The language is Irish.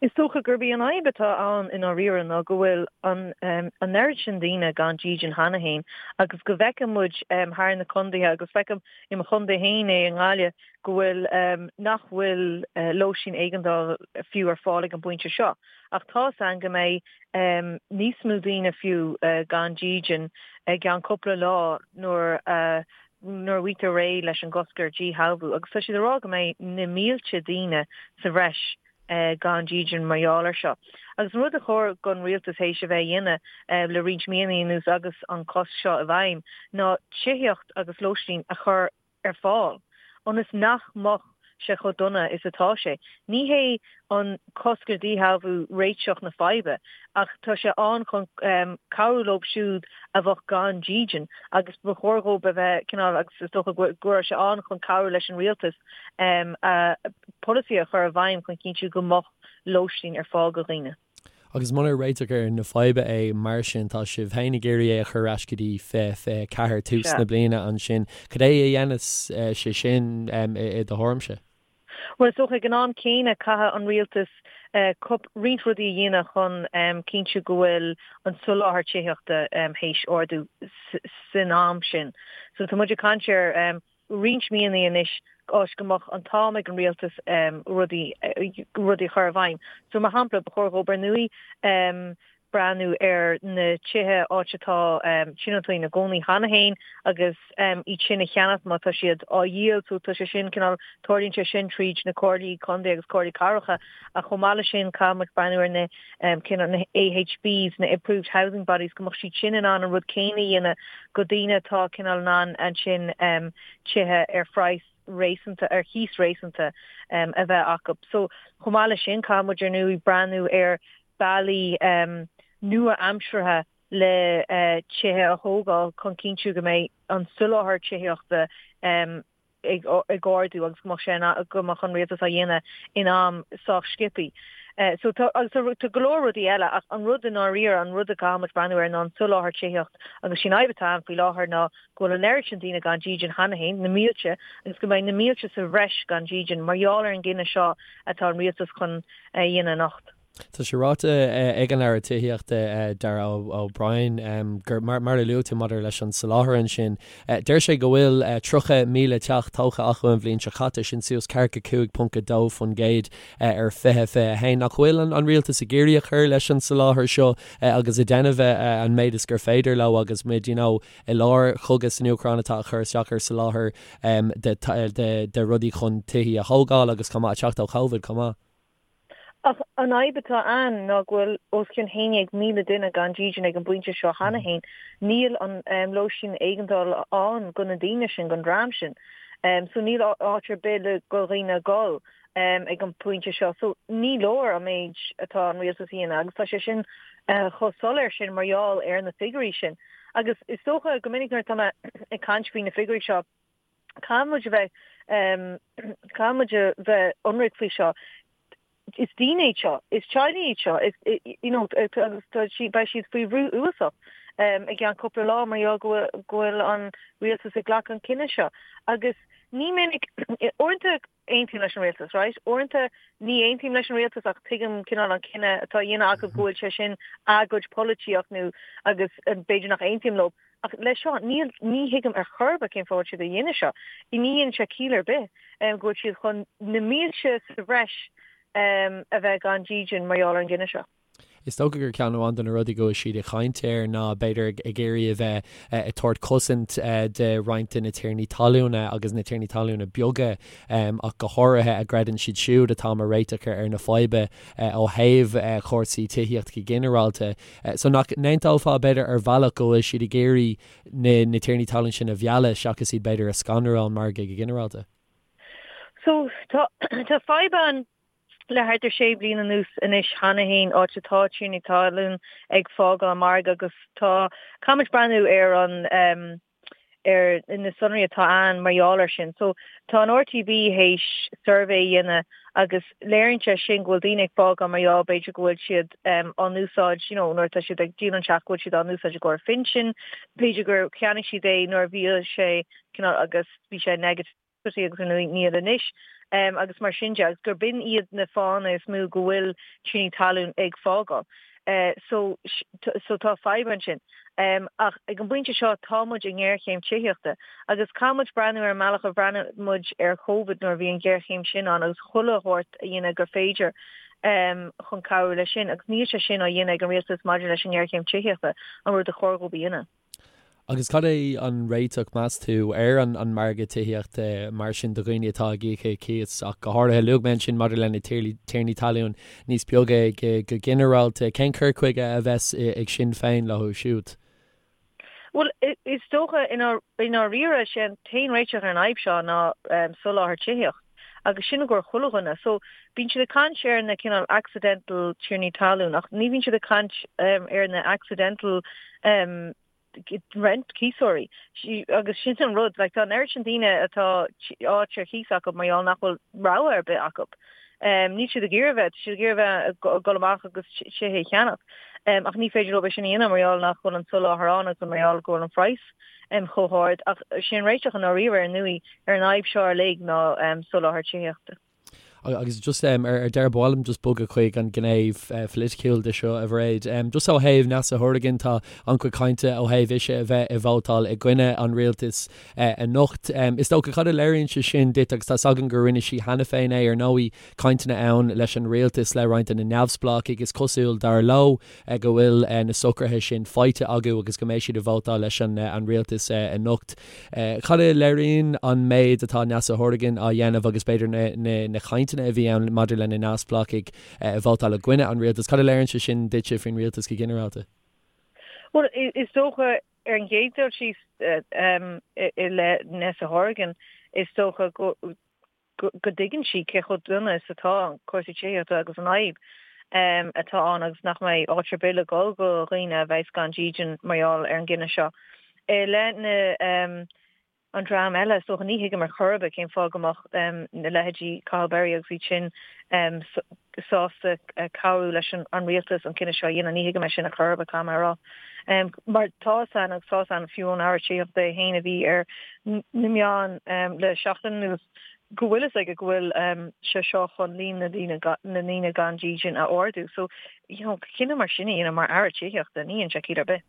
Is dócha gurb í an fhadhb atá ann i ndáiríre ná go bhfuil an an oiread sin daoine gan dídean cheana féin agus go bhfeiceann muid thar na contaetha agus feicim i mo chontae féin é i nGaillimh go bhfuil nach bhfuil lóistín éigeandála fiú ar fáil ag an bpointe seo ach tá's a'inn go mbeidh níos mó daoine fiú gan dídean i gceann cúpla lá nuair a nuair a fhaightear réidh leis an gcosc ar dhíshealbhú agus tá siad ag rá go mbeidh na mílte daoine sa bhreis gan dídean mar gheall air seo. Agus an rud a chóir don rialtas théis a bheith a dhéanamh le roinnt míonna anuas agus an cosc seo i bhfeidhm ná tithíocht agus lóistín a chur ar fáil ionas nach mbeadh sé chomh dona is atá sé. Ní hé an cosc ar dhíshealbhú réiteach na faidhbe ach tá sé ann chun cabhrú leo siúd a bheadh gan dídean agus ba chóir dhóibh a bheith cineál agus is dócha go raibh sé ann chun cabhrú leis an rialtas a polasaí a chur i bhfeidhm chun cinntiú go mbeadh lóistín ar fáil do dhaoine. Agus munar réiteach ar na faidhbe é mar sin, tá sibh féin ag iarraidh é a chur ar ais go dtí 2024, tús na bliana ansin. Cad é a dhéanfas sé sin i do thuairimse? Bhuel, is dócha ag an am céanna caithfidh an rialtas roinnt rudaí a dhéanamh chun cinntiú go bhfuil an soláthar tithíochta théis ardú san am sin. So tá muid ag caint ar roinnt míonna anois áit go mbeadh an t-am ag an rialtas rudaí rudaí a chur i bhfeidhm. So mar shampla, ba chóir dhóibh ar ndóigh breathnú ar na tithe áit atá tionóntaí ina gcónaí cheana féin agus iad sin a cheannach má tá siad á dhíol. So tá sé sin cineál, tarlaíonn sé sin tríd na comhairlí contae agus comhairlí cathracha ach chomh maith leis sin caithfidh muid breathnú ar na cineál na AHBs, na Approved Housing Bodies, go mbeadh siad sin in ann an rud céanna a dhéanamh go daoine atá cineál in ann ansin tithe ar phraghas réasúnta, ar chíos réasúnta a bheith acu. So chomh maith leis sin caithfidh muid ar ndóigh breathnú ar bealaí nua-aimseartha le tithe a thógáil chun cinntiú go mbeidh an soláthar tithíochta ag ardú agus go mbeadh sé go mbeadh an rialtas á dhéanamh in am sách sciobtha. So tá agus tá go leor rudaí eile ach an rud i ndáiríre, an rud a gcaithfidh muid breathnú air ná an soláthar tithíocht agus sin fhadhb atá ann faoi láthair ná go bhfuil an oiread sin daoine gan dídean cheana féin, na mílte, agus go mbeidh na mílte sa bhreis gan dídean mar gheall ar an gcinneadh seo atá an rialtas chun a dhéanamh anocht. Tá sé ráite ag an Aire Tithíochta, Darragh O'Brien, gur, mar a luaigh tú maidir leis an soláthar ansin, deir sé go bhfuil 30,000 teach tógtha acu an bhliain seo caite, sin suas 45.2% ar 2021. Nach bhfuil an rialtas ag iarraidh a chur leis an soláthar seo agus ag déanamh an méid is gur féidir leo agus muid, you know, i lár chogadh san Úcráin atá ag cur isteach ar soláthar de rudaí chun tithí a thógáil agus chomh maith ag teacht ó Covid chomh maith? Ach an fhadhb atá ann ná go bhfuil os cionn 11,000 duine gan dídean ag an bpointe seo cheana féin. Níl an lóistín éigeandála ann do na daoine sin, don dream sin. So níl áit ar bith le do dhaoine a dhul ag an bpointe seo. So ní leor an méid atá an rialtas a dhéanamh agus tá sé sin chomh soiléir sin mar gheall ar na figiúirí sin. Agus is dócha go minic nuair atá mé ag caint faoi na figiúirí seo, Caithfidh muid a bheith, caithfidh muid a bheith ionraic faoi seo. Is daoine iad seo, is teaghlaigh iad seo, is, you know, agus tá siad, beidh siad faoi bhrú uafásach i gceann cúpla lá mar gheall go bhfuil, go bhfuil an rialtas ag glacadh an cinneadh seo. Agus ní minic, uaireanta aontaím leis an rialtas, right? Uaireanta ní aontaím leis an rialtas ach tuigim cineál an cinneadh atá á dhéanamh acu go bhfuil sé sin a gcuid polaitíocht nó agus b'fhéidir nach aontaím leo. Ach leis seo, níl, ní thuigim ar chor ar bith cén fáth a bhfuil siad a dhéanamh seo. Ní dhéanann sé ciall ar bith go bhfuil siad chun na mílte sa bhreis a bheith gan dídean mar gheall ar an gcinneadh seo. Is dócha gur ceann amháin de na rudaí go bhfuil siad ag caint air ná b'fhéidir ag iarraidh a bheith ag tabhairt cosaint de roinnt de na tiarnaí talúna agus na tiarnaí talúna beaga ach go háirithe a gcreideann siad siúd atá mar réiteach ar na fadhba ó thaobh chúrsaí tithíochta go ginearálta. So nach n-aontófá b'fhéidir ar bhealach go bhfuil siad ag iarraidh na tiarnaí talún sin a mhealladh seachas iad b'fhéidir a scanrú ón margadh go ginearálta? So tá fadhb ann le thart ar sé bliana anuas anois cheana féin, áit atá tiarnaí talún ag fágáil an margadh agus tá, caithfimid breathnú ar an ar na sonraí atá ann mar gheall air sin. So tá an RTB théis suirbhé a dhéanamh agus léiríonn sé sin go bhfuil daoine ag fágáil mar gheall b'fhéidir go bhfuil siad á n-úsáid, you know, nuair atá siad ag díol an teach go bhfuil siad á n-úsáid i gcomhair phinsin, b'fhéidir gur cheannaigh siad é nuair a bhí sé cineál agus bhí sé negative. agus níl anois. agus mar sin de agus gurb in iad na fáthanna is mó go bhfuil tiarnaí talún ag fágáil. So so tá fadhb ansin. Ach ag an bpointe seo tá muid i ngéarchéim tithíochta agus caithfidh muid breathnú ar an mbealach a bhreathnaigh muid ar Covid nuair a bhí an ghéarchéim sin ann agus chuile shórt a dhéanamh gur féidir chun cabhrú leis sin agus níl sé sin á dhéanamh ag an rialtas maidir leis an ngéarchéim tithíochta, an rud a chóir dhóibh a dhéanamh. Agus cad é an réiteach, meas tú, ar an an margadh tithíochta mar sin do dhaoine atá ag íoc cíos ach go háirithe, luaigh mé ansin maidir le na tiarnaí talún níos beaga go ginearálta, cén cur chuige a bheas ag Sinn Féin leo siúd? Bhuel, is dócha i ndáiríre, sé an t-aon réiteach ar an fhadhb seo ná soláthar tithíocht agus sin i gcomhair chuile dhuine. So, bíonn siad ag caint ar na cineál accidental tiarnaí talún ach ní bhíonn siad ag caint ar na accidental rent cíosóirí agus sin an rud, like tá an oiread sin daoine atá áit ar chíos acu mar gheall nach bhfuil rogha ar bith acu. Níl siad ag iarraidh bheith, tá siad ag iarraidh bheith ag dul amach agus tithe a cheannach ach ní féidir leo é sin a dhéanamh mar gheall nach bhfuil an soláthar ann agus mar gheall go bhfuil an phraghas chomh hard ach sin an réiteach i ndáiríre ar ndóigh ar an fhadhb seo uilig ná soláthar tithíochta. Agus just ar deireadh, ba mhaith liom just bogadh chuig an ghné pholaitiúil de seo, a Mhairéad. Just ó thaobh Neasa Hourigan, tá an-chuid cainte ó thaobh ise a bheith ag vótáil i gcoinne an rialtais anocht. Is dócha, cad a léiríonn sé sin duit, agus tá's againn gur rinne sí cheana féin é, ar ndóigh, cainteanna ann leis an rialtas, le roinnt de na neamhspleáchaigh, is cosúil, dar leo, go bhfuil na socruithe sin faighte acu agus go mbeidh siad ag vótáil leis an rialtas anocht. Cad a léiríonn an méid atá Neasa Hourigan á dhéanamh agus b'fhéidir na cainteanna a bhí ann maidir le na neamhspleáchaigh ag vótáil i gcoinne an rialtais, cad a léiríonn sé sin duitse faoin rialtas go ginearálta? Bhuel, is dócha ar an gcéad dul síos i leith Neasa Hourigan, is dócha go go dtuigeann sí cé chomh dona is atá cúrsaí tithíochta agus an fhadhb atá ann agus nach mbeidh áit ar bith le dhul do dhaoine a bheas gan dídean mar gheall ar an gcinneadh seo. I leith na an dream eile, is dócha, ní thuigim ar chor ar bith cén fáth go mbeadh na leithéidí Cathal Berry agus iad sin sásta cabhrú leis an rialtas an cinneadh seo a dhéanamh. Ní thuigim é sin ar chor ar bith, caithfidh mé a rá. Mar tá fhios againn agus tá fhios againn fiú ón Aire Tithíochta é féin a bhí ar na meáin le seachtain anuas go bhfuil fhios aige go bhfuil sé seo chun líon na ndaoine gan dídean a ardú. So, you know, cinneadh mar sin a dhéanamh mar Aire Tithíochta, ní dhéanann sé ciall ar bith.